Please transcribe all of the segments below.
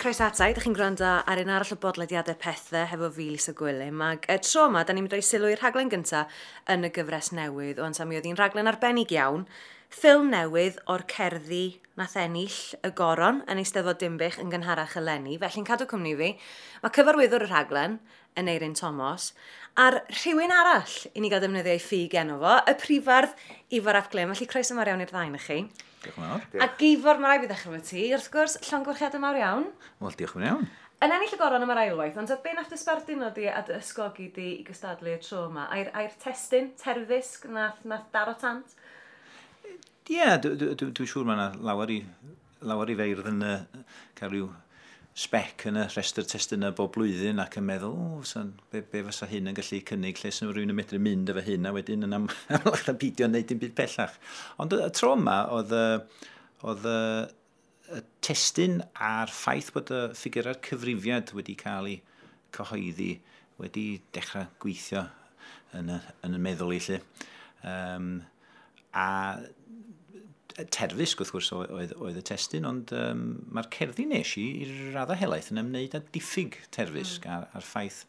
Croeso ata i, ydych chi'n gwrando ar un arall o bodlediadau Pethe hefo fi, Lisa Gwilym. Ac y tro yma, da ni'n mynd o'i sylw i'r rhaglen gyntaf yn y gyfres newydd. O'n mi oedd hi'n rhaglen arbennig iawn. Ffilm newydd o'r cerddi nath ennill y goron yn Eisteddfod Dinbych yn gynharach eleni. Felly'n cadw cwmni fi. Mae cyfarwyddwr y rhaglen, Aneirin Tomos, a'r rhywun arall i ni gael defnyddio ei ffug enw fo, y prifardd Ifor ap Glyn. Felly croeso mawr iawn i'r ddau na chi. Diolch yn fawr. A Ifor, mae rhaid fi ddechrau efo ti, wrth gwrs, llongyfarchiadau mawr iawn. Wel, diolch yn iawn. Yn ennill y goron am yr ailwaith, ond be nath dy sbarduno di a dy ysgogi di i gystadlu y tro yma? Ai'r testun, terfysg, nath daro tant? Ie, yeah, dwi'n siŵr mae yna lawer i feirdd yn cael rhyw spec yn y rhestr testunau bob blwyddyn ac yn meddwl, o, be fysa hyn yn gallu cynnig, lle sy'n rhywun yn medru mynd efo hyn, a wedyn yn amlach na beidio wneud dim byd pellach. Ond y tro yma, oedd y testun a'r ffaith bod y ffigurau'r cyfrifiad wedi cael ei cyhoeddi wedi dechrau gweithio yn y meddwl i lle. A terfysg, wrth gwrs, oedd y testun, ond mae'r cerddi nes i raddau helaeth yn ymwneud â diffyg terfysg a'r ffaith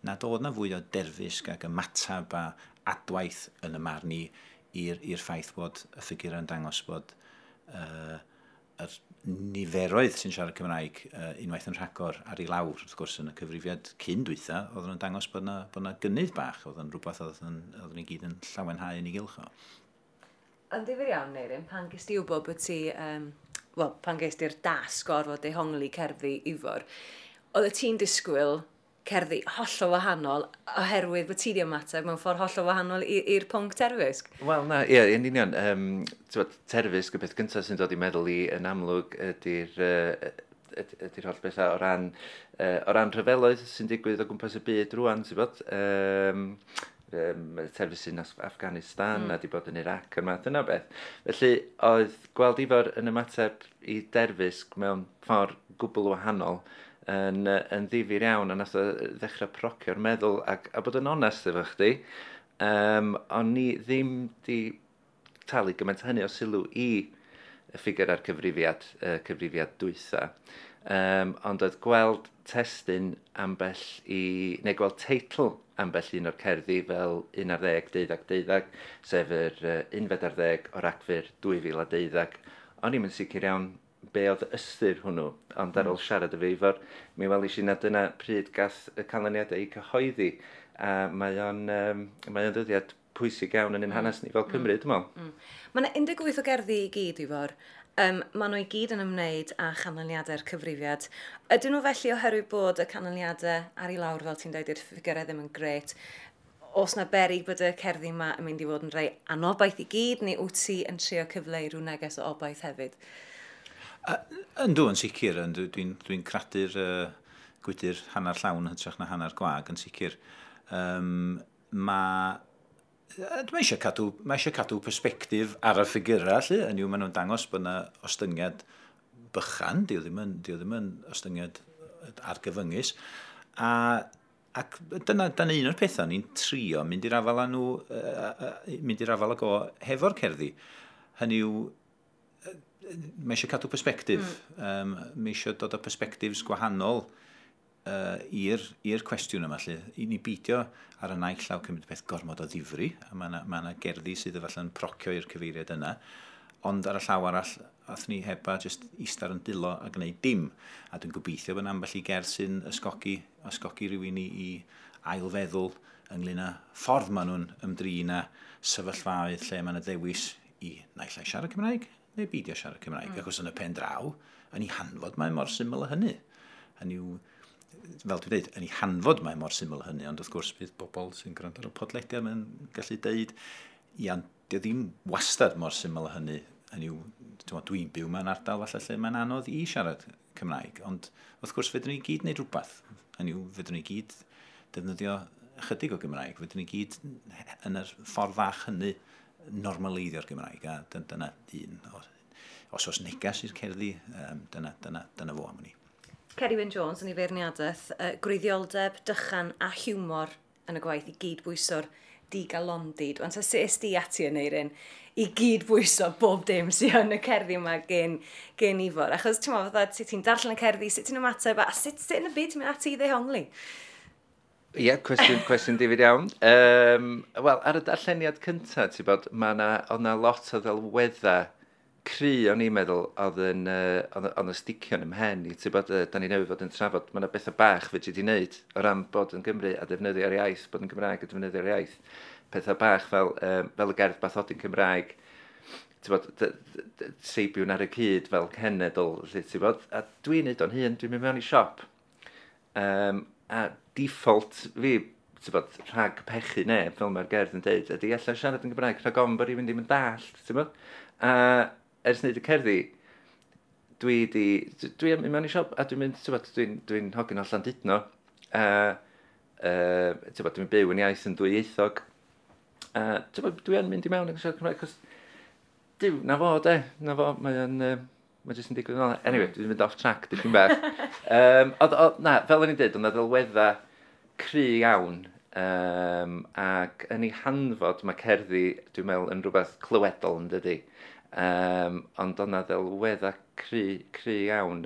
nad oedd na fwy o derfysg ac ymateb a adwaith yn y marn i i'r ffaith bod y ffigurau yn dangos bod yr niferoedd sy'n siarad Cymraeg unwaith yn rhagor ar ei lawr, wrth gwrs, yn y cyfrifiad cyn dwytha, oedd yn dangos bod na gynnydd bach, oedd yn rhywbeth oedd ni gyd yn llawenhau yn ei gylch o. Yn ddifyr iawn, Neirin, pan ges di wybod bod ti, pan ges di'r dasg o orfod dehongli cerddi Ifor, oedd y ti'n disgwyl cerddi hollol wahanol oherwydd bod ti di ymateb mewn ffordd hollol wahanol i'r pwnc terfysg? Wel, na, ie, yn union. Terfysg, y peth gyntaf sy'n dod i meddwl i yn amlwg ydy'r holl bethau o ran rhyfeloedd sy'n digwydd o gwmpas y byd rwan, ti'n bod? Terfysg yn Afghanistan a di bod yn Iraq a'r math yna beth. Felly, oedd gweld Ifor yn ymateb i derfysg mewn ffordd gwbl wahanol yn ddifyr iawn, a nath o ddechrau procio'r meddwl a bod yn onest efo chdi. O'n ni ddim di talu gymaint hynny o sylw i y ffigur a'r cyfrifiad, cyfrifiad dwytha. Ond oedd gweld testun ambell i, neu gweld teitl ambell un o'r cerddi fel 11, 12, 12, sef yr 11 o Ragfyr 2012. O'n i'm yn sicr iawn be oedd ystyr hwnnw, ond ar ôl siarad efo Ifor, mi welish i na dyna pryd gath y canlyniadau eu cyhoeddi, a mae o'n ddyddiad pwysig iawn yn ein hanes ni fel Cymru, dwi'n meddwl. Mae yna 18 o gerddi i gyd, Ifor. Maen nhw i gyd yn ymwneud â chanlyniadau'r cyfrifiad. Ydyn nhw felly oherwydd bod y canlyniadau ar ei lawr, fel ti'n dweud, i'r ffigurau ddim yn grêt? Oes na beryg bod y cerddi yma yn mynd i fod yn rhai anobaith i gyd, neu wyt ti yn trio cyfleu rhyw neges o obaith hefyd? Yndw, yn sicr. Dwi'n cradu'r gwydr hanner llawn hytrach na hanner gwag, yn sicr. Mae eisiau cadw persbectif ar y ffigurau, lle. Yn yw, maen nhw'n dangos bod yna ostyngiad bychan, dio ddim yn ostyngiad argyfyngus. Ac dyna un o'r pethau ni'n trio mynd i'r afael â nhw, mynd i'r afael ag o hefo'r cerddi. Hynny yw, mae eisiau cadw persbectif. Mae eisiau dod â persbectifs gwahanol i'r cwestiwn yma, lle. I ni beidio ar y naill llaw cymryd peth gormod o ddifri, a mae yna gerddi sydd efallai'n procio i'r cyfeiriad yna, ond ar y llaw arall, ath ni heba jyst eistedd yn dilo a gwneud dim. A dwi'n gobeithio bod ambell i gerdd sy'n ysgogi rhywun i ailfeddwl ynglyn â ffordd maen nhw'n ymdrin â sefyllfaoedd lle mae yna ddewis i naill ai siarad Cymraeg neu beidio siarad Cymraeg. Achos yn y pen draw, yn ei hanfod mae mor syml â hynny. Hynny yw, fel dwi'n dweud, yn ei hanfod mae mor syml hynny, ond wrth gwrs bydd bobl sy'n gwrando ar y podlediad yn gallu deud, ia, dio ddim wastad mor syml hynny. Hynny yw, dwi'n byw mewn ardal falle lle mae'n anodd i siarad Cymraeg, ond wrth gwrs fedrwn ni gyd wneud rhywbeth. Hynny yw, fedrwn ni gyd defnyddio ychydig o Gymraeg, fedrwn ni gyd yn yr ffordd fach hynny normaleiddio'r Gymraeg, a dyna un. Os oes neges i'r cerddi, dyna fo am hynny. Ceri Wyn Jones yn ei feirniadaeth, gwreiddioldeb, dychan a hiwmor yn y gwaith i gyd bwyso'r Digalondid. Ond sut es di ati yn Aneirin i gyd bwyso bob dim sydd yn y cerddi yma gen Ifor? Achos ti'n meddwl, fatha, sut ti'n darllen y cerddi, sut ti'n ymateb, a sut yn y byd ti'n mynd ati i ddehongli? Ie, yeah, cwestiwn difyr iawn. Wel, ar y darlleniad cyntaf, ti'n bod, mae na, oedd na lot o ddelweddau cry o'n i'n meddwl oedd yn, oedd yn sticio yn ymhen i, ti'n bod, da ni newydd fod yn trafod, mae yna bethau bach fedri di wneud o ran bod yn Gymru a defnyddio'r iaith, bod yn Gymraeg a defnyddio'r iaith. Pethau bach fel y gerdd bathodyn Cymraeg, ti'n bod, seibiwn ar y cyd fel cenedl, lle, ti'n bod, a dwi'n neud o'n hun, dwi'n mynd mewn i siop, a default fi, ti'n bod, rhag pechu neb, fel mae'r gerdd yn deud, ydy allan siarad yn Gymraeg rhag ofn bod rhywun ddim yn dallt, ti'n bod? A ers wneud y cerddi, dwi yn mynd mewn i siop a dwi'n mynd, ti'n bod, dwi'n hogyn o Llandudno, a ti'n bod, dwi'n byw yn iaith yn dwyieithog, a ti'n bod, dwi yn mynd i mewn yn siarad Cymraeg, cos, diw, na fo, de, na fo, mae'n mae jyst yn digwydd yn ôl. Anyway, dwi'n mynd off track dipyn bach. Na, fel o'n i'n dweud, oedd 'na ddelweddau cry iawn, ac yn ei hanfod mae cerddi, dwi'n meddwl, yn rhywbeth clywedol yn dydi. Ond oedd 'na ddelweddau cry iawn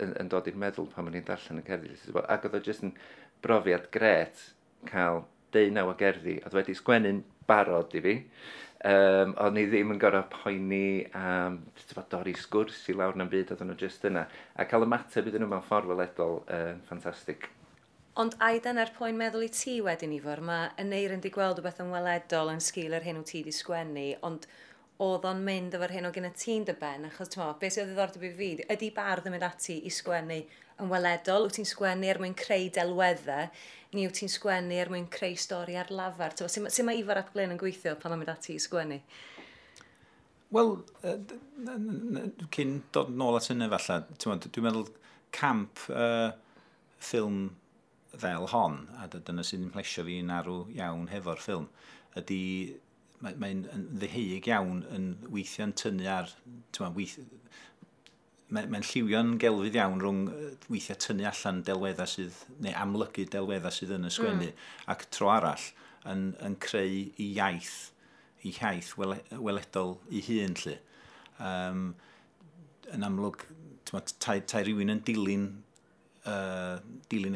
yn dod i'r meddwl pan o'n i'n darllen y cerddi. Ac oedd o jyst yn brofiad gret cael 19 o gerddi. Oedd wedi sgwennu'n barod i fi. O'n i ddim yn gorfod poeni am dorri sgwrs i lawr na'n byd, oedden nhw jyst yna. A cael ymateb iddyn nhw mewn ffordd weledol yn ffantastig. Ond ai dyna'r poen meddwl i ti wedyn, Ifor? Mae Aneirin di gweld rhywbeth yn weledol yn sgil yr hyn wyt ti di sgwennu, ond oedd o'n mynd efo'r hyn o gyda ti'n dy ben, achos ti'n meddwl, beth sydd o ddiddordeb i fi, ydy bardd yn mynd ati i sgwennu yn weledol? Wyt ti'n sgwennu er mwyn creu delweddau, neu wyt ti'n sgwennu er mwyn creu stori ar lafar? Sut mae Ifor ap Glyn yn gweithio pan mae'n mynd ati i sgwennu? Wel, cyn dod nôl at hynny falle, dwi'n meddwl camp ffilm fel hon, a dyna sy'n plesio fi'n arw iawn hefo'r ffilm, ydy mae'n ddeheuig iawn yn weithio'n tynnu ar, mae'n lliwio'n gelfydd iawn rhwng weithiau tynnu allan delweddau sydd, neu amlygu delweddau sydd yn y sgwennu, ac tro arall yn creu i iaith weledol i hun, lly. Yn amlwg, tai rhywun yn dilyn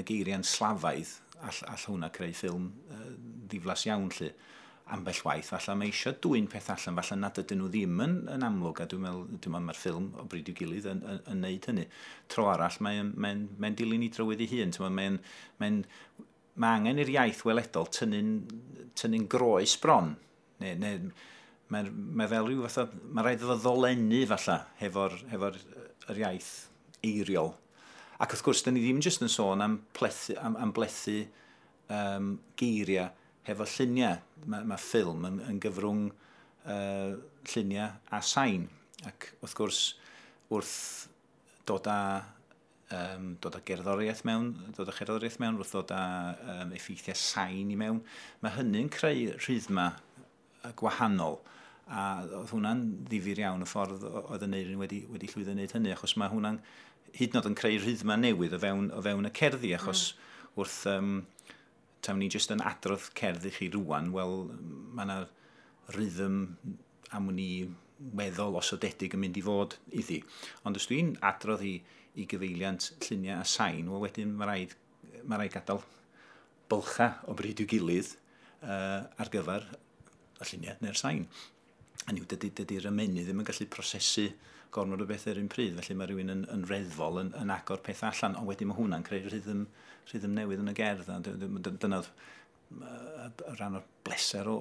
y geiriau'n slafaidd, all hwnna creu ffilm ddiflas iawn, lly. Ambell waith, falle mae eisiau dwyn peth allan, falle nad ydyn nhw ddim yn amlwg, a dwi'n meddwl mae'r ffilm o bryd i'w gilydd yn neud hynny. Tro arall, mae'n dilyn i drywydd ei hun. Mae angen i'r iaith weledol tynnu'n groes bron. Neu, mae fel rhyw fatha, mae rhaid iddo ddolennu falle hefo'r yr iaith eiriol. Ac wrth gwrs, dyn ni ddim jyst yn sôn am blethu geiriau hefo lluniau. Mae ffilm yn gyfrwng lluniau a sain. Ac wrth gwrs, wrth dod â gerddoriaeth mewn, wrth dod â effeithiau sain i mewn, mae hynny'n creu rhythma gwahanol. A oedd hwnna'n ddifyr iawn y ffordd oedd Aneirin wedi llwyddo wneud hynny, achos mae hwnna'n hyd yn oed yn creu rhythma newydd o fewn y cerddi, achos wrth tawn ni jyst yn adrodd cerdd i chi rŵan, wel, mae yna rhythm am wn i weddol osodedig yn mynd i fod iddi. Ond os dwi'n adrodd i gyfeiliant lluniau a sain, wel wedyn mae rhaid gadael bylcha o bryd i'w gilydd ar gyfer y lluniau neu'r sain. Hynny yw, dydy'r ymennydd ddim yn gallu prosesu gormod o beth ar un pryd, felly mae rhywun yn reddfol yn agor peth allan, ond wedyn mae hwnna'n creu rhythm newydd yn y gerdd, a dyna rhan o'r bleser o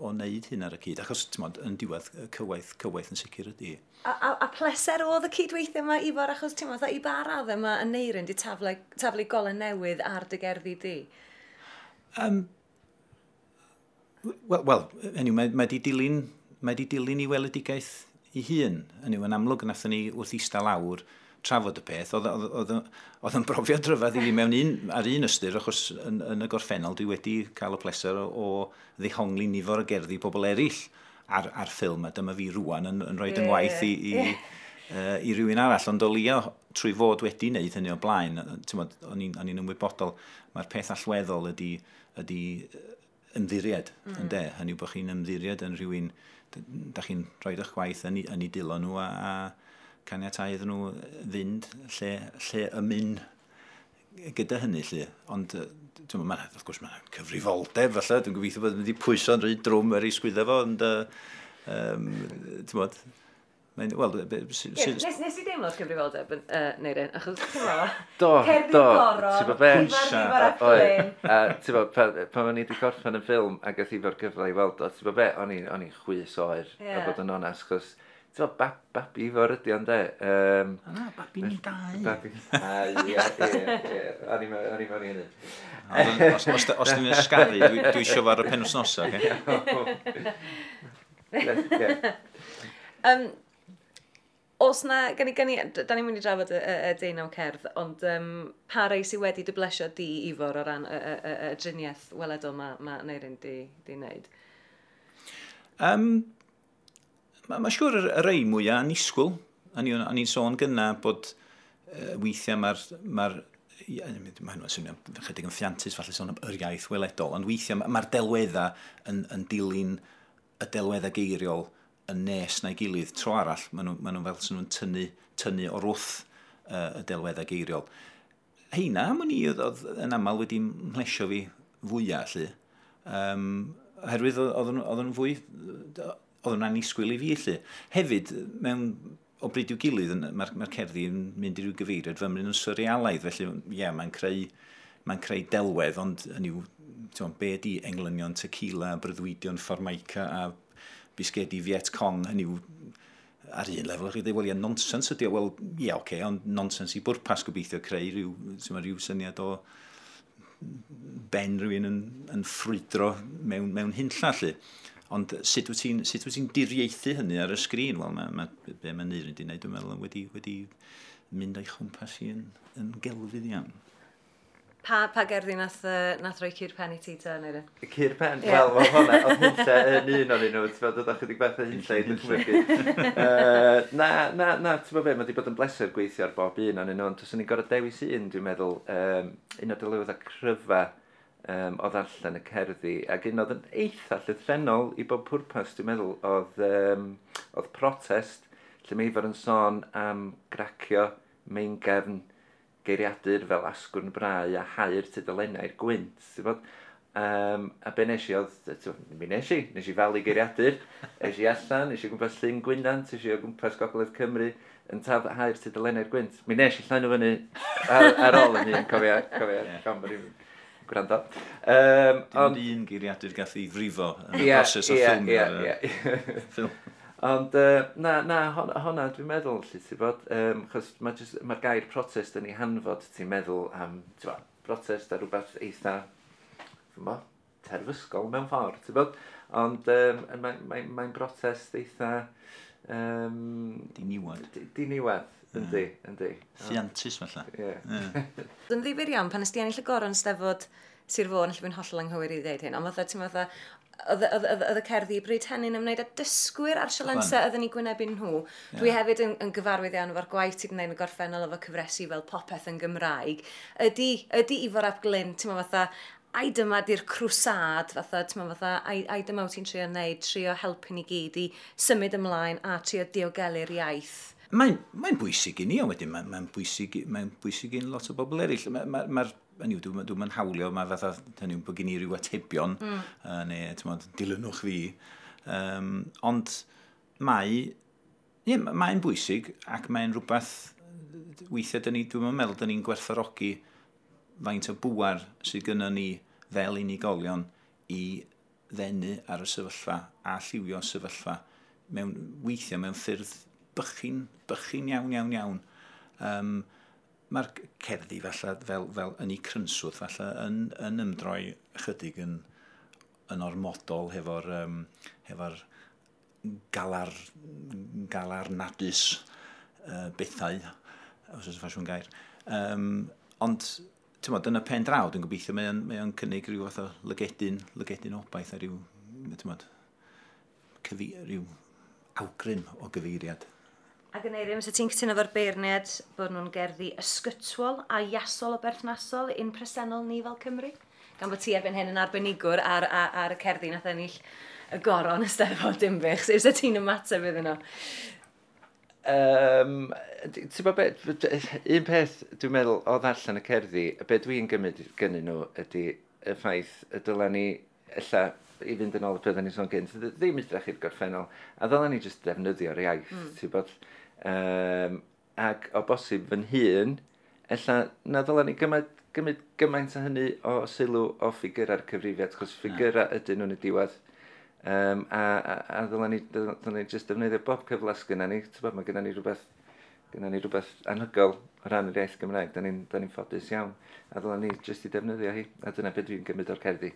wneud hyn ar y cyd, achos ti'n yn diwedd cywaith yn sicr ydy. A pleser oedd y cydweithio yma, Ifor, achos ti'n i ba raddau mae Aneirin di taflu golau newydd ar dy gerddi di? Wel, hynny, mae di dilyn i weledigaeth i hun. Hynny, yn amlwg, nathon ni wrth eistedd lawr trafod y peth. Oedd yn brofiad rhyfedd i fi mewn ar un ystyr, achos yn y gorffennol dwi wedi cael y pleser o ddehongli nifer o gerddi pobl eraill ar ffilm, a dyma fi rŵan yn rhoi yng ngwaith i rywun arall. Ond o leia trwy fod wedi wneud hynny o blaen, o'n i'n ymwybodol, mae'r peth allweddol ydy ymddiried, ynde? Hynny yw bod chi'n ymddiried yn rhywun, da chi'n rhoi eich gwaith yn ei dilo nhw a caniatáu iddyn nhw fynd lle y mynd gyda hynny, lle. Ond, ti'n meddwl, wrth gwrs, mae'n cyfrifoldeb, falle. Dwi'n gobeithio bod yn mynd i pwyso'n rhy drwm ar ei sgwydda fo, ond, ti'n meddwl, wel, Nes i deimlo'r cyfrifoldeb, Neirin, achos ti'n meddwl, Do, cerddi do. goron, Ti'n gwbod be? Pwysa. Ifor ap Glyn. A ti'n gwbod, pan o'n i wedi gorffen y ffilm ac oedd Ifor gyfle i weld o, ti'n gwbod be, o'n i'n chwys oer, a bod yn onest, chos, ti'n gwbod, babi Ifor ydi o'n de. Na, babi ni dau. Babi, ie, ie, ie, o'n i'n mewn i hynny. Os dwi'n ysgaru, dwi isio fo ar y penwythnosa, oce? Ie. Os na, da ni'n mynd i drafod y 19 cerdd, ond pa rai sydd wedi dy blesio di, Ifor, o ran y driniaeth weledol ma Neirin di wneud? Mae siŵr y rei mwyaf annisgwyl. O'n i'n sôn gynna bod weithiau mae hwnna'n swnio chydig yn ffiantus, falle sôn am yr iaith weledol, ond weithiau mae'r delweddau yn dilyn y delweddau geiriol yn nes na'i gilydd. Tro arall, maen nhw fel sy'n nhw'n tynnu o'r wrth y delweddau geiriol. Heina, am wn i, oedd yn aml wedi mhlesio fi fwyaf, lle. Oherwydd oedd nhw'n fwy, oedd nhw'n annisgwyl i fi, lle. Hefyd, mewn o bryd i'w gilydd, mae'r cerddi yn mynd i ryw gyfeiriad fymryn yn surrealaidd, felly, ie, mae'n creu delwedd, ond hynny yw, ti'n gwbod, be ydi englynion tequila, breuddwydion Formica a bisgedi Viet Cong, hynny yw, ar un lefel, chi'n dweud, wel, ie, nonsens ydi o, wel, ie, oce, ond nonsens i bwrpas gobeithio creu rhyw, ti'n gwbod, rhyw syniad o ben rhywun yn ffrwydro mewn hunlla, lle. Ond sut wyt ti'n diriaethu hynny ar y sgrin? Wel, be mae Neirin wedi wneud, dwi'n meddwl, wedi mynd o'i chwmpas i yn gelfydd iawn. Pa gerddi nath roi cur pen i ti te, Neirin? Cur pen? Ie. Wel, hwnna, oedd hunlle yn un o'n nhw, ti'n meddwl, oedd chydig bach o hunlle i ddychmygu. Na, na, ti'n meddwl be, mae wedi bod yn bleser gweithio ar bob un o'n nhw, ond os o'n i'n gorfod dewis un, dwi'n meddwl, un o delweddau cryfa o ddarllen y cerddi, ac un oedd yn eitha llythrennol i bob pwrpas, dwi'n meddwl, oedd protest, lle mae Ifor yn sôn am gracio meingefn geiriadur fel asgwrn brau a hau'r tudalennau'r gwynt, ti'n gwbod? A be nes i oedd, ti'n gwbod, mi nes i falu geiriadur, es i allan, es i o gwmpas Llyn Gwynant, es i o gwmpas Gogledd Cymru, yn taf hau'r tudalennau'r gwynt. Mi nes i llanw fyny ar ôl yn hun, cofia, gan bod i'n gwrando. Dim ond un geiriadur gath ei frifo yn y broses o ffilmio ffilm. Ond na, honna dwi'n meddwl, lle, ti'n bod, chos mae'r gair protest yn ei hanfod, ti'n meddwl am, ti'n bod, protest a rhywbeth eitha, ti'n bod, terfysgol mewn ffordd, ti'n bod, ond mae'n protest eitha... Diniwad. Diniwad, yndi, yndi. Ffiantus, falle. Ie. Yn ddifyr iawn, pan ys di ennill y goron Steddfod Sir Fôn, lle fi'n hollol anghywir i ddeud hyn, ond fatha, ti'n fatha, oedd y cerddi bryd hynny'n ymwneud â dysgwyr a'r sialensau oedden ni gwynebu nhw. Dwi hefyd yn gyfarwydd iawn efo'r gwaith ti 'di wneud yn y gorffennol efo cyfresi fel Popeth yn Gymraeg. Ydy Ifor ap Glyn, ti'n meddwl fatha, ai dyma di'r crwsad, fatha, ti'n meddwl fatha, ai dyma wyt ti'n trio wneud, trio helpu ni gyd i symud ymlaen a trio diogelu'r iaith. Mae'n bwysig i ni, ond wedyn mae'n bwysig i lot o bobl eraill. Hynny yw, dwi'm yn hawlio, mae fatha, hynny yw, bod gen i ryw atebion, neu, ti'n meddwl, dilynwch fi. Ond mae'n bwysig ac mae'n rhywbeth, weithiau dwi'm yn meddwl, dyn ni'n gwerthfawrogi faint o bŵer sydd gynnon ni fel unigolion i ddenu ar y sefyllfa a lliwio sefyllfa weithiau mewn ffyrdd bychin iawn, iawn, iawn. Mae'r cerddi falle fel yn ei crynswth falle yn ymdroi ychydig yn ormodol hefo'r galarnadus bethau, os oes ffasiwn gair. Ond, ti'n bod, yn y pen draw, dwi'n gobeithio mae o'n cynnig rhyw fath o lygedyn obaith a rhyw, ti'n bod, rhyw awgrym o gyfeiriad. Ac yn Eirin, fysa ti'n cytuno efo'r beirniad bod nhw'n gerddi ysgytwol a iasol o berthnasol i'n presennol ni fel Cymru? Gan bod ti erbyn hyn yn arbenigwr ar y cerddi nath ennill y goron y Steddfod Dinbych. Sut fysa ti'n ymateb iddyn nhw? Ti'n bod be, un peth dwi'n meddwl o ddarllen y cerddi, be dwi'n gymryd gynnyn nhw ydy y ffaith y dyla ni, ella, i fynd yn ôl y peth o'n i'n sôn gynt, ddim edrych i'r gorffennol, a ddyla ni jyst defnyddio'r iaith, ti'n bod, ac o bosib fy hun, ella na ddyla ni gymryd gymaint o hynny o sylw o ffigurau'r cyfrifiad, achos ffigurau ydyn nhw'n y diwedd. A ddyla ni jyst defnyddio bob cyfle sgynna ni. Ti'n bod, mae gynna ni rhywbeth anhygoel o ran yr iaith Gymraeg. Da ni ffodus iawn. A ddyla ni jyst i defnyddio hi. A dyna beth dwi'n gymryd o'r cerddi.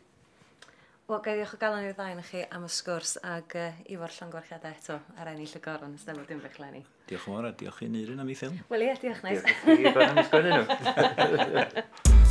Wel, gai ddiolch o galon i'r ddau chi am y sgwrs ag Ifor, llongyfarchiadau eto ar ennill y goron y Steddfod Dinbych leni. Diolch yn fawr a diolch i Neirin am ei ffilm. Wel ie, diolch, neis. Diolch i chi am sgwennu nhw.